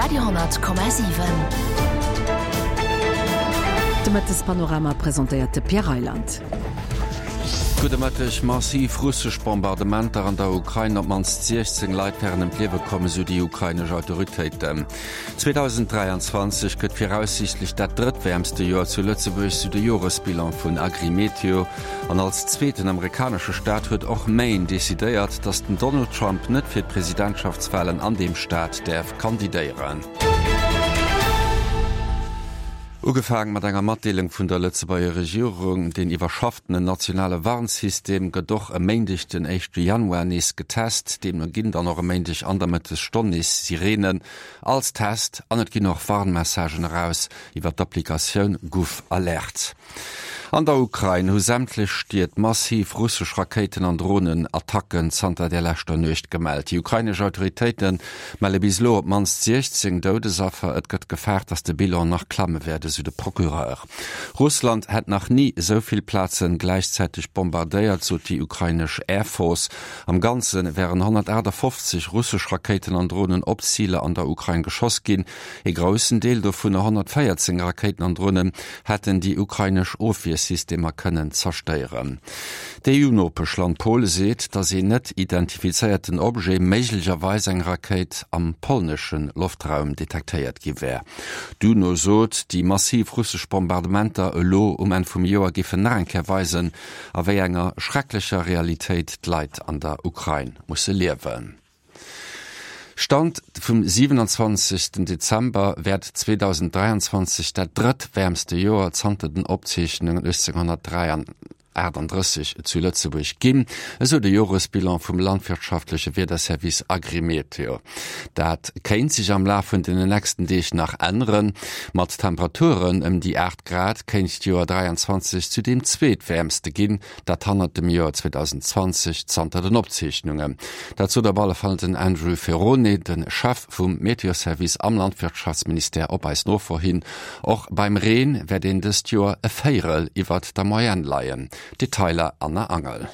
Radio 10,7. De Mëttespanorama presentéiert de Pierre Reyland. Gudde Mëtteg. Massiv russesch Bombardementer an der Ukrain, op d'mannst 16 Leit wären ëm d'Liewe komm, esou déi ukrainesch Autoritéiten. 2023 gëtt viraussiichtlech dat drëttwäermste Joer zu Lëtzebuerg, sou de Joresbilan vun Agrimeteo. An als zweeten amerikanesche Staat huet och Maine decidéiert, datt den Donald Trump net fir d'Presidentschaftswalen an deem Staat däerf kandidéieren. Ugefaang mat enger Matdeelung vun der Lëtzebuerger Regierung, Den iwwerschafften nationale Warnsystem gëtt och e Méindeg den éischte Januar nees getest. Deemno ginn dann och e Méindeg an der Mëttesstonn nees Sireenen als Test an et ginn och Warnmessagen eraus iwwer d'Applikatioun GouvAlert. An der Ukrain hu sämtlech Stied massiv russesch Rakéiten an Dronenattacken zanter der leschter Nuecht gemellt. Déi ukrainesch Autoritéite melle bis elo op d'mannst 16 Doudesaffer. Et gëtt gefaart, datt de Bilan nach klamme wäert, esou de Procureur. Russland hätt nach ni esou vill Plaze gläichzäiteg bombardéiert, sot déi ukrainesch Air Force. Am Ganze wären 158 russesch Rakéiten an Dronen op Ziler an der Ukrain geschoss ginn. Ee groussen Deel dovunner, 114 Rakéiten an Dronen, hätten déi ukrainesch Ofwiersystemer kënnen zerstéieren. D'EU-Nopeschland Pole seet, datt een net identifizéierten Objet, méiglecherweis eng Rakéit, am polnesche Loftraum detektéiert gi wär. D'UNO sot, déi massiv russesch Bombardementer elo um Enn vum Joer géifen nach eng Kéier weisen, a wéi enger schrecklecher Realitéit d'Leit an der Ukrain musse liewen. Stand vum 27 Dezember wäert 2023 dat drëttwäermste Joer zanter den Opzeechnungen 1838 zu Lëtzebuerg ginn, esou de Joresbilan vum landwirtschaftleche Wiederservice Agrimeteo. Dat kéint sech am Laf vun den nächsten Deeg nach änneren. Mat Temperaturen ëm déi 8 Grad kéint d'Joer 23 zu deem zweetwäermste ginn, Dat hannert dem Joer 2020 zanter den Opzeechnungen. Dat sot op alle Fall den Andrew Ferrone, de Chef vum Meteoservice am Landwirtschaftsministère op eis Nofro hin. Och beim Reen wäert een dëst Joer e Véierel iwwert der Moyenne leien. Detailer Anna Angel.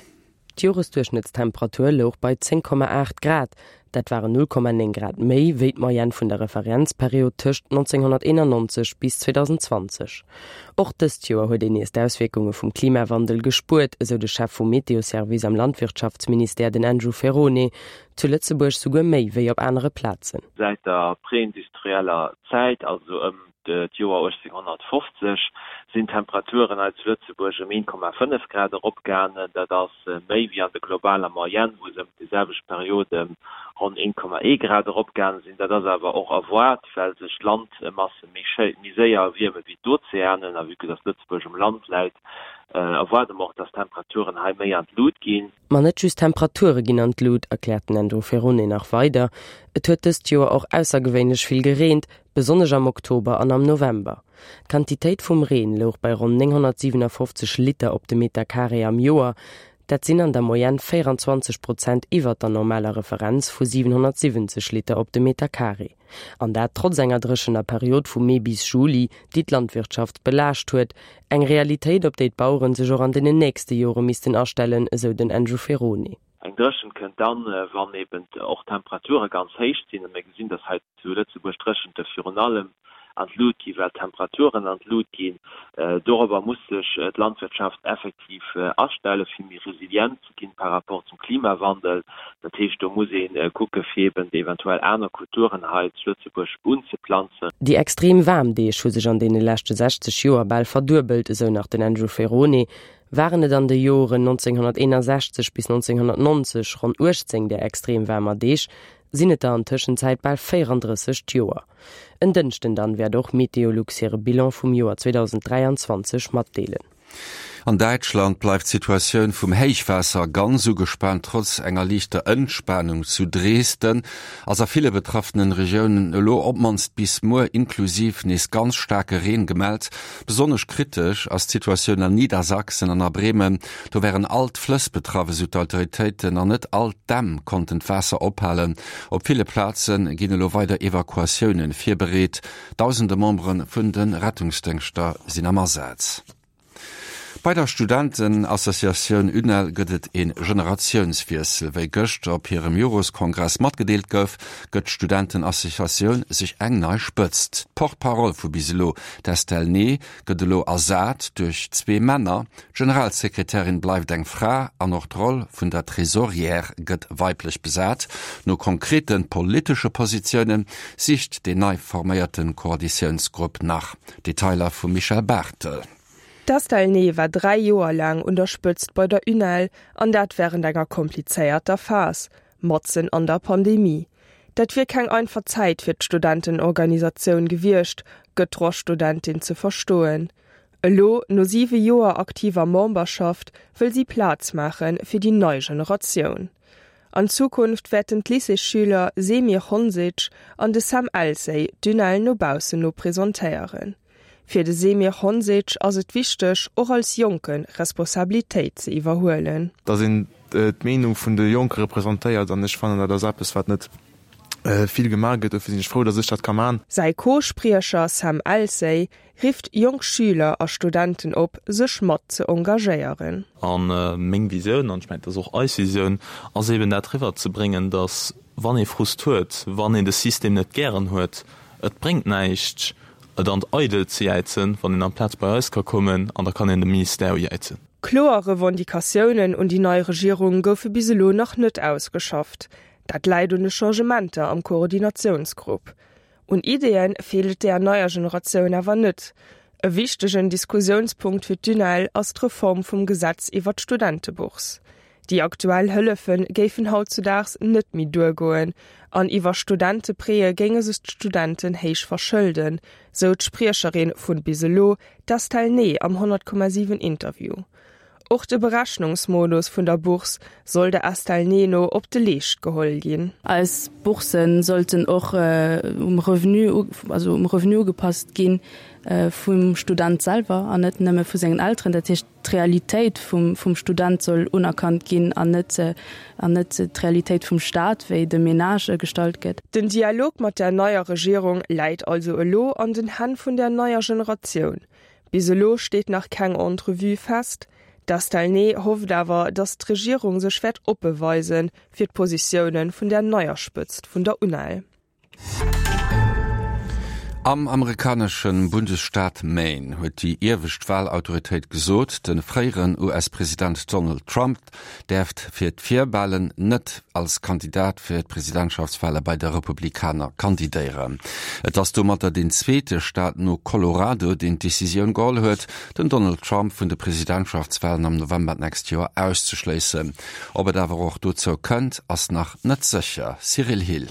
D'Joresduerchschnëttstemperatur louch bei 10,8 Grad, Dat waren 0,9 Grad méi wéi d'Moyenne vun der Referenzperiod tëscht 1991 bis 2020. Och dëst Joer huet een nees d'Auswierkunge vum Klimawandel gespuert, esou de Chef vum Meteoservice am Landwirtschaftsministère, den Andrew Ferrone. Zu Lëtzebuerg souguer méi wéi op anere Plazen. Säit der preindustrieller Zäit, also ëm d'Joer 1850, sinn d'Temperaturen hei zu Lëtzebuerg ëm 1,5 Grad eropgaangen. Dat ass méi wéi an der globaler Moyenne, wou se ëm déi selwecht Period ëm ronn 1,1 Grad eropgaange sinn. Dat ass awer och erwaart, well sech d'Landmasse méi méi séier erwierme wéi d'Ozeanen. A vue que dass Lëtzebuerg um Land läit, erwaarde mer och, dass d'Temperaturen hei méi an d'Lut ginn. Ma net just d'Temperature ginn an d'Lut, erkläert den Andrew Ferrone nach weider. Et huet dëst Joer och aussergewéinlech vill gereent, besonnesch am Oktober an am November. D'Quantitéit vum Reen louch bei ronn 957 Liter op de Meter Carré am Joer. Dat sinn an der Moyenne 24 Prozent iwwert der normaler Referenz vu 770 Liter op de Meter Carré. An dat trotz enger dréchener Period vu Mee bis Juli, déi d'Landwirtschaft belaascht huet. Eng Realitéit, op déi d'Baueren sech och an den nächste Jore missten astellen, esou den Andrew Ferrone. Eng Dréchent kënnt dann, wann eben och d'Temperature ganz héich sinn. A mir gesinn, dass hei zu Lëtzebuerg d'Dréchente virun allem an d'Lut ginn, well d'Temperaturen an d'Lut ginn. Dorobber muss sech d'Landwirtschaft effektiv astellen, fir méi resilient ze ginn par rapport zum Klimawandel. Dat heescht, do muss ee kucke fir eben eventuell aner Kulturen hei zu Lëtzebuerg unzeplanzen. Déi extrem waarm Deeg hu sech an deene leschte 60 Joer bal verduebelt, esou nach den Andrew Ferrone. Waren et an de Joren 1961 bis 1990 ronn 18 där extrem waarmer Deeg, sinn et der an Tëschenzäit bal 34 d'Joer. En Dënschden dann wäert och Meteolux hire Bilan vum Joer 2023 matdeelen. An Däitschland bleift d'Situatioun vum Héichwaasser ganz ugespaant. Trotz enger liichter Entspanung zu Dresden ass a ville betraffenen Regiounen elo op d'mannst bis muer inklusiv nees ganz staarke Reen gemellt. Besonnesch kritesch ass d'Situatioun an Niedersachsen an a Bremen. Do wären all d'Flëss betraff, esou d'Autoritéiten, an net all d'Dämm konnten d'Waasser ophalen. Op ville Plaze ginn elo weider Evakuatioune virbereet. Dausende Membere vun de Rettungsdéngschter sinn am Asaz. Bei der Studentenassociatioun UNEL gëtt et ee Generatiounswiessel. Wéi gëschter op hirem Joreskongress matgedeelt gouf, gëtt d'Studentenassociatioun sech eng nei Spëtzt. D'Porte-parole vu bis elo, d'Estelle Ney, gëtt elo ersat duerch zwee Männer. D'Generalsekretärin bleift eng Fra an och d'Roll vun der Trésorière gëtt weiblech besat. No konkrete politesche Positioune sicht deen nei forméierte Koalitiounsgrupp nach. Detailer vum Michèle Barthel. D'Estelle Ney war 3 Joer laang un der Spëtzt bei der UNEL, an dat wärend enger komplizéierter Phas, matzen an der Pandemie. Dat wier keng einfach Zäit fir d'Studentenorganisatioun gewiescht, gëtt d'Droitsstudentin ze verstoen. Elo, no 7 Joer aktiver Memberschaft, wëll si Plaz maache fir déi nei Generatioun. An Zukunft wäerten d'Lycéesschüler Semir Honsic an de Sam Elsey d'UNEL no baussen no presentéieren. Fir de Semir Honsic ass et wichteg, och als Jonke Responsabilitéit ze iwwerhuelen. Dass een d'Meenung vun de Jonke representéiert an ech fannen, dat ass eppes, wat net vill gemaach gëtt. Dofir sinn ech frou, dass ech dat ka man. Säi Co-Spriecher Sam Elsey rifft jonk Schüler a Studenten op, sech mat ze engagéieren. A meng Visioun, an ech mengen, dat ass och eis Visioun, ass eeben dat eriwwerzebréngen, dass wann ee Frust huet, wann een de System net gären huet, et bréngt näischt, et an d'Eidelt ze jäizen, wann een amplaz bei eis ka kommen an da kann een de Ministère ujäizen. Kloer Revendicatiounen un déi nei Regierung goufe bis elo nach net ausgeschafft. Dat läit un de Changementer am Koordinatiounsgrupp. Un Ideeë feelt et där neier Generatioun awer net. E wichtegen Diskussiounspunkt fir d'UNEL ass d'Reform vum Gesetz iwwer d'Studentebourse. Déi aktuell Hëllefe géifen hautzudaags net méi duergoen an iwwer Studenteprêtë géinge sech d'Studenten héich verschëlden, sou d'Spriecherin vun bis elo, d'Estelle Ney am 100,7 Interview. Och de Berechnungsmodus vun der Bourse soll der Estelle Ney no op de Leescht geholl ginn. Eis Boursen sollten och um Revenu, also um Revenu ugepasst gi vum Student selwer an net nëmme vu sengen Elteren. Dat heescht, d'Realitéit vum vum Student soll unerkannt ginn an net an net d'Realitéit vum Staat, wéi de Menage gestallt gëtt. Den Dialog mat der neier Regierung läit also elo an den Hänn vun der neier Generatioun. Bis elo steet nach keng Entrevue fest. D'Estelle Ney hofft awer, datt d'Regierung sech wäert oppe weise fir d'Positioune vun der neier Spëtzt vun der UNEL. Am amerikanesche Bundesstaat Maine huet déi iewescht Walautoritéit gesot, de fréieren US-President Donald Trump däerft fir d'Virwalen net als Kandidat fir d'Presidentschaftswale bei de Republikaner kandidéieren. Et ass domatter deen zweete Staat no Colorado, deen d'Decisioun geholl huet, den Donald Trump vun de Presidentschaftswalen am November d'nächst Joer auszeschléissen. Ob et awer och dozou kënnt, ass nach net sécher. Cyril Hill.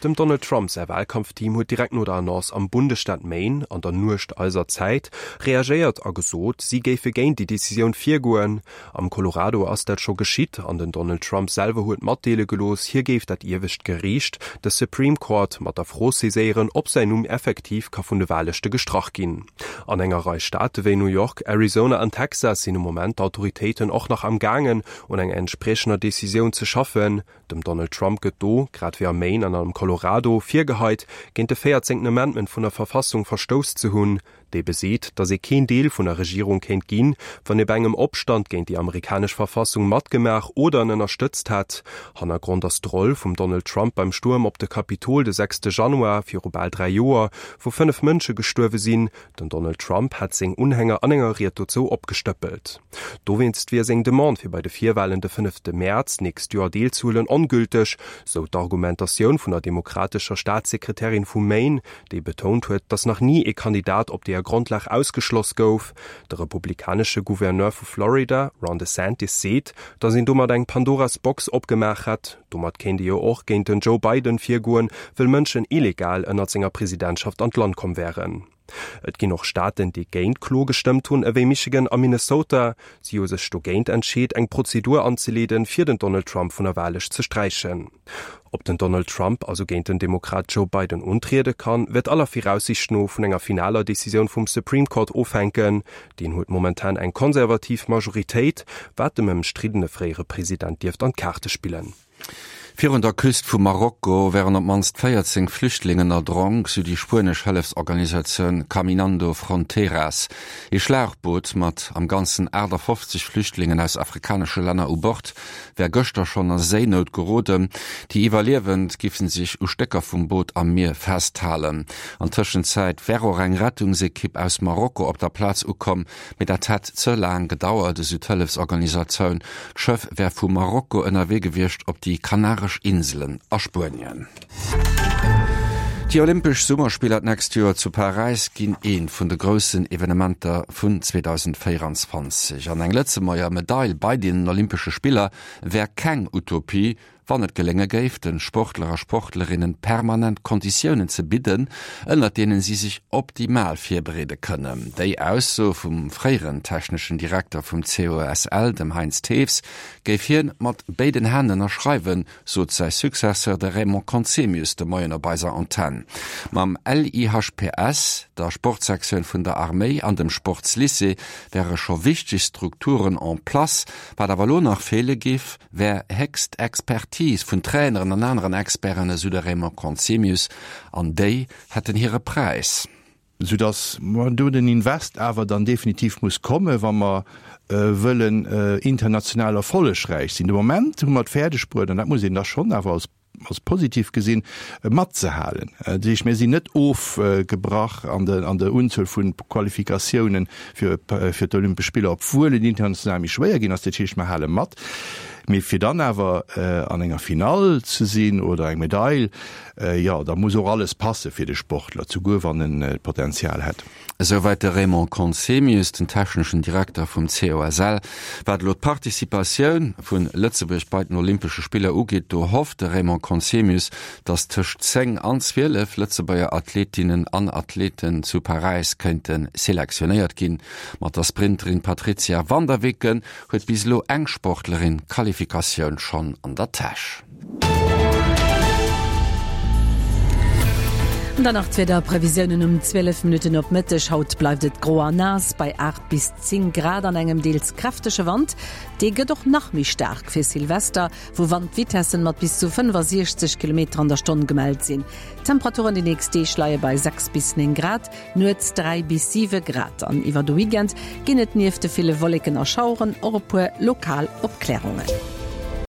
Dem Donald Trump säi Walkampfteam huet direkt no der Annonce am Bundesstaat Maine, an der Nuecht eiser Zäit, reagéiert a gesot, si géife géint déi Decisioun virgoen. Am Colorado ass dat scho geschitt an den Donald Trump selwer huet matdeele gelooss, hie géif dat iewescht Geriicht, de Supreme Court, mat der Fro saiséieren, ob säin Numm effektiv ka vun de Wahllëschte gestrach ginn. An enger Rei Staate wéi New York, Arizona an Texas sinn um Moment d'Autoritéiten och nach am gaangen, un enger entspriechender Decisioun ze schaffen. Dem Donald Trump gëtt do, grad wéi am Maine an am Colorado, virgeheit, géint de véierzéngten Amendment vun der Verfassung verstouss ze hunn, dee beseet, datt ee keen Deel vun der Regierung kéint ginn, wann ee bei engem Opstand géint déi amerikanesch Verfassung matgemaach oder en ënnerstëtzt hätt. Hannergrond ass d'Roll vum Donald Trump beim Stuerm op de Kapitol de sechste Januar viru bal 3 Joer, wou 5 Mënsche gestuerwe sinn. Den Donald Trump hätt seng Unhänger an enger Ried dozou opgestëppelt. Dowéinst wier seng Demande fir bei de Virwalen de fënnefte Mäerz d'nächst Joer deelzehuelen ongülteg, sou d'Argumentatioun vun der demokratescher Staatssekretärin vu Maine, déi betount huet, datt nach ni ee Kandidat op deeër Grondlag ausgeschloss gouf. De republikanesche Gouverneur vu Florida, Ron DeSantis, seet, datt een domat eng Pandoras Box opgemaach hätt. Domat kéint ee jo och géint den Joe Biden virgoen, wëll Mënschen illegal ënnert senger Presidentschaft an d'Land komm wären. Et ginn och Staaten, déi géint d'Klo gestëmmt hunn, ewéi Michigan a Minnesota. Si hu sech dogéint entscheet, eng Prozedur anzeleeden, fir den Donald Trump vun der Wahllëscht ze sträichen. Ob den Donald Trump also géint den Demokrat Joe Biden untriede kann, wäert aller Viraussiicht no vun enger finaler Decisioun vum Supreme Court ofhänken. Deen huet momentan eng konservativ Majoritéit, wat dem ëmstriddene fréiere President dierft an d'Kaarte spillen. Virun der Küst vu Marokko wären op d'mannst 14 Flüchtlingen erdronk, sou déi spuenesch Hëllefsorganisatioun Caminando Fronteras. Ee Schlauchboot mat am Ganzen 58 Flüchtlingen aus afrikanesche Länner u Bord wär gëschter schonn a Séinout geroden. Déi Iwwerliewend giffen sech u Stécker vum Boot am Mier festhalen. An Tëschenzäit wär och eng Rettungsekipp aus Marokko op der Plaz ukomm, Mee dat hätt ze laang gedauert, esou d'Hëllefsorganisatioun. D'Schëff wär vu Marokko ënnerwee gewiescht op déi Kanaresch Inselen a Spuenien. Déi Olympesch Summerspiller d'nächst Joer zu Paräis ginn eent vun de groussen Evenementer vun 2024. An eng Lëtzebuerger Medail bei deenen Olympesche Spiller wär keng Utopie, Wann et gelénge géif, de Sportler a Sportlerinnen permanent Konditiounen ze bidden, ënnert deenen si sech optimal virbereede kënnen. Déi Ausso vum fréieren techneschen Direkter vum COSL, dem Heinz Thews, géif hien mat béiden Hänn ënnerschreiwen, sot säi Successeur, de Raymond Conzemius, de Moien op eiser Antenn. Mam LIHPS, der Sportsektioun vun der Arméi an dem Sportslycée wäre scho wichteg Strukturen en place. Wat awer elo nach feele géif, wär héchst Expertise vun Traineren an aneren Experten, esou de Raymond Conzemius, an déi hätten hire Präis. Soudass do den Invest awer dann definitiv muss kommen, wa mer wëllen international erfollegräich sinn. De Moment hu mer et fäerdeg bruet, an dat muss een da schonn awer als als positiv gesinn, matzehalen. Dat heescht, mir sinn net ofgebrach an der Unzuel vu Qualifikatiounen fir d'Olympesch Spiller, obwuel et international méi schwéier ginn ass. Dat heescht, mer hale mat. Mee fir dann awer an enger Finall ze sinn oder eng Medail, jo, da muss och alles passe fir de Sportler, souguer wann en d'Potenzial hätt. Esouwäit de Raymond Conzemius, den techneschen Direkter vum COSL. Wat elo d'Participatioun vu Lëtzebuerg bei den Olympesche Spiller ugeet, do hofft de Raymond Conzemius, datt tëscht 10 an 12 Lëtzebuerger Athletinnen an Athleten zu Paräis kéinte selektionéiert ginn. Mat der Sprinterin Patrizia van der Weken huet bis elo eng Sportlerin d'Qualifikatioun schonn an der Täsch. An dann nach d'Wiederprevisiounen um 12 Minutten op Mëtteg. Haut bleift et gro a naass bei 8 bis 10 Grad an engem deels kräftege Wand. Dee gëtt och nach méi staark fir Silvester, wou Wandvitessen mat bis zu 65 Kilometer an der Stonn gemellt sinn. D'Temperaturen déi nächst Deeg leie bei 6 bis 9 Grad, nuets 3 bis 7 Grad. An iwwer de Weekend ginn et nieft de ville Wolleken a Schaueren och e puer lokal Opklärungen.